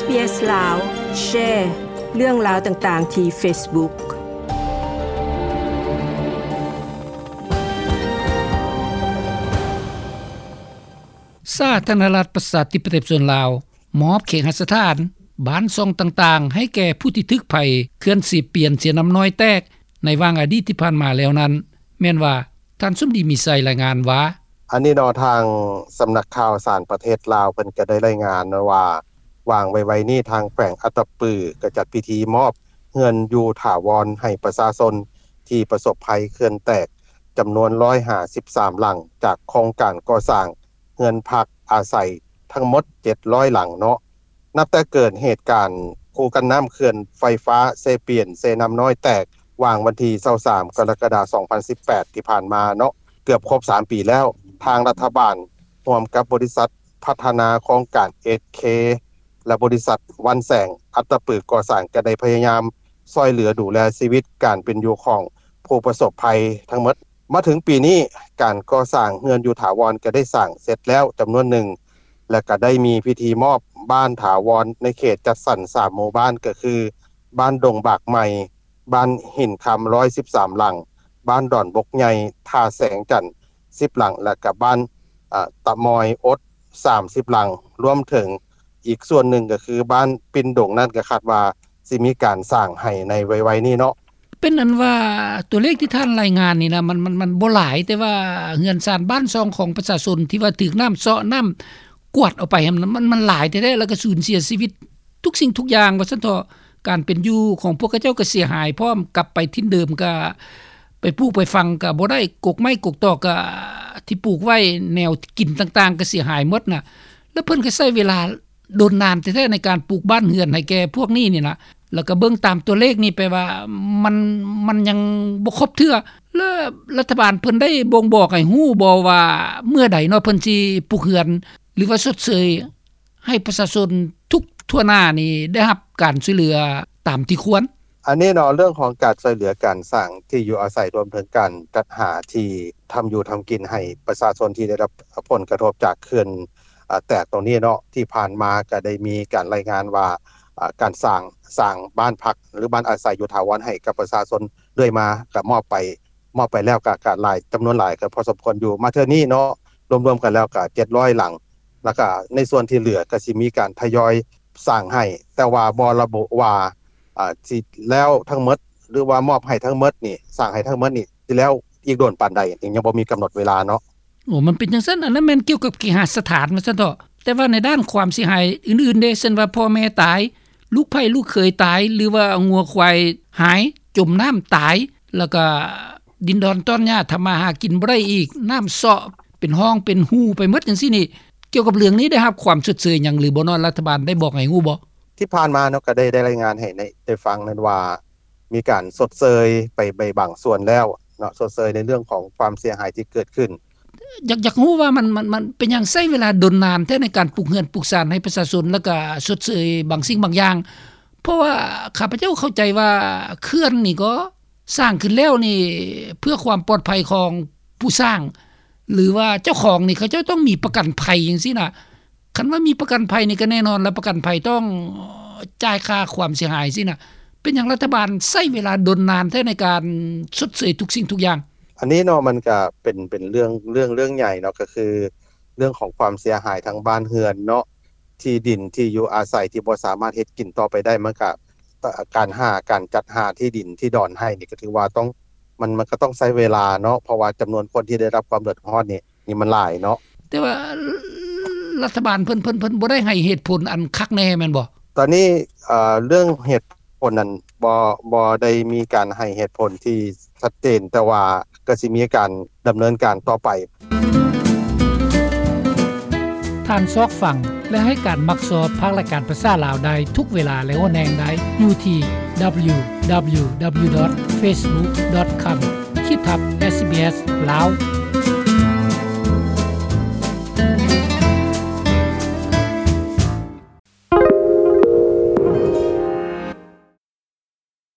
ເອສ ລາວ ແຊເລື່ອງລາວຕ່າງໆທີ່ເຟສບຸກ. ສາທາລະນະລັດ ປະຊາທິປະໄຕ ປະຊາຊົນລາວ ມອບເຄຫະສະຖານ ບ້ານຊ່ອງຕ່າງໆ ໃຫ້ແກ່ຜູ້ທີ່ຖືກໄພເຂື່ອນເຊປຽນ ເຊນ້ຳນ້ອຍແຕກ ໃນຫວ່າງອະດີດທີ່ຜ່ານມາແລ້ວນັ້ນ ແມ່ນວ່າ ທ່ານສົມດີ ມີໄຊ ລາຍງານວ່າ: ອັນນີ້ເນາະ ທາງສຳນັກຂ່າວສານປະເທດລາວ ເພິ່ນກໍໄດ້ລາຍງານວ່າ ຫວ່າງໄວໆນີ້ ທາງແຂວງອັດຕະປື ກໍຈັດພິທີມອບເຮືອນຢູ່ຖາວອນໃຫ້ປະຊາຊົນທີ່ປະສົບໄພເຂື່ອນແຕກ ຈຳນວນຮ້ອຍຫ້າສິບສາມຫຼັງ ຈາກໂຄງການກໍ່ສ້າງເຮືອນພັກອາໄສທັງໝົດເຈັດຮ້ອຍຫຼັງເນາະ. ນັບແຕ່ເກີດເຫດການຄູກັນນ້ຳເຂື່ອນໄຟຟ້າເຊປຽນ ເຊນ້ຳນ້ອຍແຕກ ຫວ່າງວັນທີຊາວສາມ ກໍລະກະດາ ສອງພັນສິບແປດ ທີ່ຜ່ານມາເນາະ ເກືອບຄົບສາມປີແລ້ວ, ທາງລັດຖະບານຮ່ວມກັບບໍລິສັດພັດທະນາໂຄງການ ເອສເຄ ແລະ ບໍລິສັດວັນແສງ ອັດຕະປື ກໍ່ສ້າງ ກໍໄດ້ພະຍາຍາມຊ່ວຍເຫຼືອດູແລຊີວິດການເປັນຢູ່ຂອງຜູ້ປະສົບໄພທັງໝົດ. ມາເຖິງປີນີ້ ການກໍ່ສ້າງເຮືອນຢູ່ຖາວອນກໍໄດ້ສ້າງເສັດແລ້ວຈຳນວນໜຶ່ງ ແລະ ກໍໄດ້ມີພິທີມອບບ້ານຖາວອນໃນເຂດຈັດສັນສາມໝູ່ບ້ານ ກໍຄື ບ້ານດົງບາກໃໝ່, ບ້ານຫີນຄຳ ຮ້ອຍສິບສາມຫຼັງ, ບ້ານດອນບົກໃຫຍ່ ທ່າແສງຈັນ ສິບຫຼັງ ແລະ ກໍບ້ານ ອາ ຕະມອຍອົດ ສາມສິບຫຼັງ, ລວມເຖິງອີກສ່ວນໜຶ່ງກໍຄືບ້ານປິ່ນດົງນັ້ນ ກໍຄາດວ່າຊິມີການສ້າງໃຫ້ໃນໄວໆນີ້ເນາະ. ເປັນອັນວ່າຕົວເລກທີ່ທ່ານລາຍງານນີ້ນະ ມັນ ມັນ ມັນບໍ່ຫຼາຍ, ແຕ່ວ່າເຮືອນຊານບ້ານຊ່ອງຂອງປະຊາຊົນທີ່ວ່າຖືກນ້ຳເຊາະ ນ້ຳກວາດເອົາໄປຫັ້ນ ມັນ ມັນຫຼາຍແທ້ໆ ແລ້ວກໍສູນເສຍຊີວິດທຸກສິ່ງທຸກຢ່າງວ່າຊັ້ນເຖາະ. ການເປັນຢູ່ຂອງພວກເຂົາເຈົ້າກໍເສຍຫາຍພ້ອມ, ກັບໄປຖິ່ນເດີມກໍໄປປູກໄປຝັງກໍບໍ່ໄດ້, ກົກໄມ້ກົກຕອກກໍທີ່ປູກໄວ້, ແນວກິນຕ່າງໆກໍເສຍຫາຍໝົດນະ. ແລ້ວເພິ່ນກໍໃຊ້ເວລາດົນນານແທ້ໆໃນການປູກບ້ານເຮືອນໃຫ້ແກ່ພວກນີ້ນີ້ນະ. ແລ້ວກໍເບິ່ງຕາມຕົວເລກນີ້ ແປວ່າມັນ ມັນຍັງບໍ່ຄົບເທື່ອ. ແລ້ວລັດຖະບານເພິ່ນໄດ້ບົ່ງບອກໃຫ້ຮູ້ບໍ່ວ່າເມື່ອໃດເນາະ ເພິ່ນຊິປຸກເຮືອນ ຫຼືວ່າຊົດເຊີຍ ໃຫ້ປະຊາຊົນທຸກທົ່ວໜ້ານີ້ໄດ້ຮັບການຊ່ວຍເຫຼືອຕາມທີ່ຄວນ? ອັນນີ້ເນາະ ເລື່ອງຂອງການຊ່ວຍເຫຼືອການສ້າງທີ່ຢູ່ອາໄສ ລວມເຖິງການຈັດຫາທີ່ທຳຢູ່ທຳກິນໃຫ້ປະຊາຊົນທີ່ໄດ້ຮັບຜົນກະທົບຈາກເຂື່ອນ ອາ ແຕກຕົງນີ້ເນາະ, ທີ່ຜ່ານມາກໍໄດ້ມີການລາຍງານວ່າ ອາ ການສ້າງ ສ້າງບ້ານພັກ ຫຼື ບ້ານອາໄສຢູ່ຖາວອນໃຫ້ກັບປະຊາຊົນເລື້ອຍມາ ກໍມອບໄປ ມອບໄປແລ້ວກໍ ກໍຫຼາຍ ຈຳນວນຫຼາຍກໍພໍສົມຄວນຢູ່. ມາເທື່ອນີ້ເນາະ ລວມໆກັນແລ້ວກໍເຈັດຮ້ອຍຫຼັງ, ແລ້ວກໍໃນສ່ວນທີ່ເຫຼືອກໍຊິມີການທະຍອຍສ້າງໃຫ້, ແຕ່ວ່າບໍ່ລະບຸວ່າ ອາ ຊິແລ້ວທັງໝົດ ຫຼືວ່າມອບໃຫ້ທັງໝົດນີ້ ສ້າງໃຫ້ທັງໝົດນີ້ ຊິແລ້ວອີກດົນປານໃດ ຍັງບໍ່ມີກຳນົດເວລາເນາະ. ໂອ້ ມັນເປັນຈັ່ງຊັ້ນ, ອັນນັ້ນແມ່ນກ່ຽວກັບເຄຫະສະຖານວ່າຊັ້ນເຖາະ. ແຕ່ວ່າໃນດ້ານຄວາມເສຍຫາຍອື່ນໆເດ ເຊັ່ນວ່າພໍ່ແມ່ຕາຍ, ລູກໃພ້ລູກເຂີຍຕາຍ ຫຼືວ່າງົວຄວາຍຫາຍ ຈົມນ້ຳຕາຍ, ແລ້ວກໍດິນດອນຕອນຫຍ້າທຳມາຫາກິນບໍ່ໄດ້ອີກ, ນ້ຳເຊາະເປັນຮ່ອງເປັນຮູໄປໝົດຈັ່ງຊີ້ນີ້, ກ່ຽວກັບເລື່ອງນີ້ໄດ້ຮັບຄວາມຊົດເຊີຍຫຍັງຫຼືບໍ່ເນາະ? ລັດຖະບານໄດ້ບອກໃຫ້ຮູ້ບໍ່? ທີ່ຜ່ານມາເນາະ ກໍໄດ້ ໄດ້ລາຍງານໃຫ້ ໃຫ້ໄດ້ຟັງນັ້ນວ່າ ມີການຊົດເຊີຍໄປ ໄປບາງສ່ວນແລ້ວເນາະ, ຊົດເຊີຍໃນເລື່ອງຂອງຄວາມເສຍຫາຍທີ່ເກີດຂຶ້ນ. ຢາກ ຢາກຮູ້ວ່າມັນ ມັນ ມັນເປັນຫຍັງໃຊ້ເວລາດົນນານແທ້ໃນການປຸກເຮືອນປຸກຊານໃຫ້ປະຊາຊົນ ແລ້ວກະຊົດເຊີຍບາງສິ່ງບາງຢ່າງ? ເພາະວ່າຂ້າພະເຈົ້າເຂົ້າໃຈວ່າເຂື່ອນນີ້ກໍສ້າງຂຶ້ນແລ້ວນີ້ເພື່ອຄວາມປອດໄພຂອງຜູ້ສ້າງ ຫຼືວ່າເຈົ້າຂອງນີ້ ເຂົາເຈົ້າຕ້ອງມີປະກັນໄພຈັ່ງຊີ້ນະ. ຄັນວ່າມີປະກັນໄພນີ້ກໍແນ່ນອນລະ ປະກັນໄພຕ້ອງຈ່າຍຄ່າຄວາມເສຍຫາຍຊີ້ນະ. ເປັນຫຍັງລັດຖະບານໃຊ້ເວລາດົນນານແທ້ໃນການຊົດເຊີຍທຸກສິ່ງທຸກຢ່າງ? ອັນນີ້ເນາະ ມັນກະເປັນ ເປັນເລື່ອງ ເລື່ອງ ເລື່ອງໃຫຍ່ເນາະ, ກໍຄືເລື່ອງຂອງຄວາມເສຍຫາຍທາງບ້ານເຮືອນເນາະ, ທີ່ດິນທີ່ຢູ່ອາໄສທີ່ບໍ່ສາມາດເຮັດກິນຕໍ່ໄປໄດ້, ມັນກະ ການຫາ ການຈັດຫາທີ່ດິນທີ່ດອນໃຫ້ນີ້ ກໍຖືວ່າຕ້ອງ ມັນ ມັນກໍຕ້ອງໃຊ້ເວລາເນາະ, ເພາະວ່າຈຳນວນຄົນທີ່ໄດ້ຮັບຄວາມເດືອດຮ້ອນນີ້ ນີ້ມັນຫຼາຍເນາະ. ແຕ່ວ່າລັດຖະບານເພິ່ນ ເພິ່ນ ເພິ່ນບໍ່ໄດ້ໃຫ້ເຫດຜົນອັນຄັກແນ່ແມ່ນບໍ່? ຕອນນີ້ ເອີ ເລື່ອງເຫດຜົນນັ້ນ ບໍ່ ບໍ່ໄດ້ມີການໃຫ້ເຫດຜົນທີ່ຊັດເຈນ, ແຕ່ວ່າກໍຊິມີການດຳເນີນການຕໍ່ໄປ. ທ່ານຊອກຟັງ ແລະ ໃຫ້ການມັກຊອບພາກລາຍການພາສາລາວໄດ້ທຸກເວລາ ແລະ ຫົວແຮງໄດ້ຢູ່ທີ່ www.facebook.com/sbslao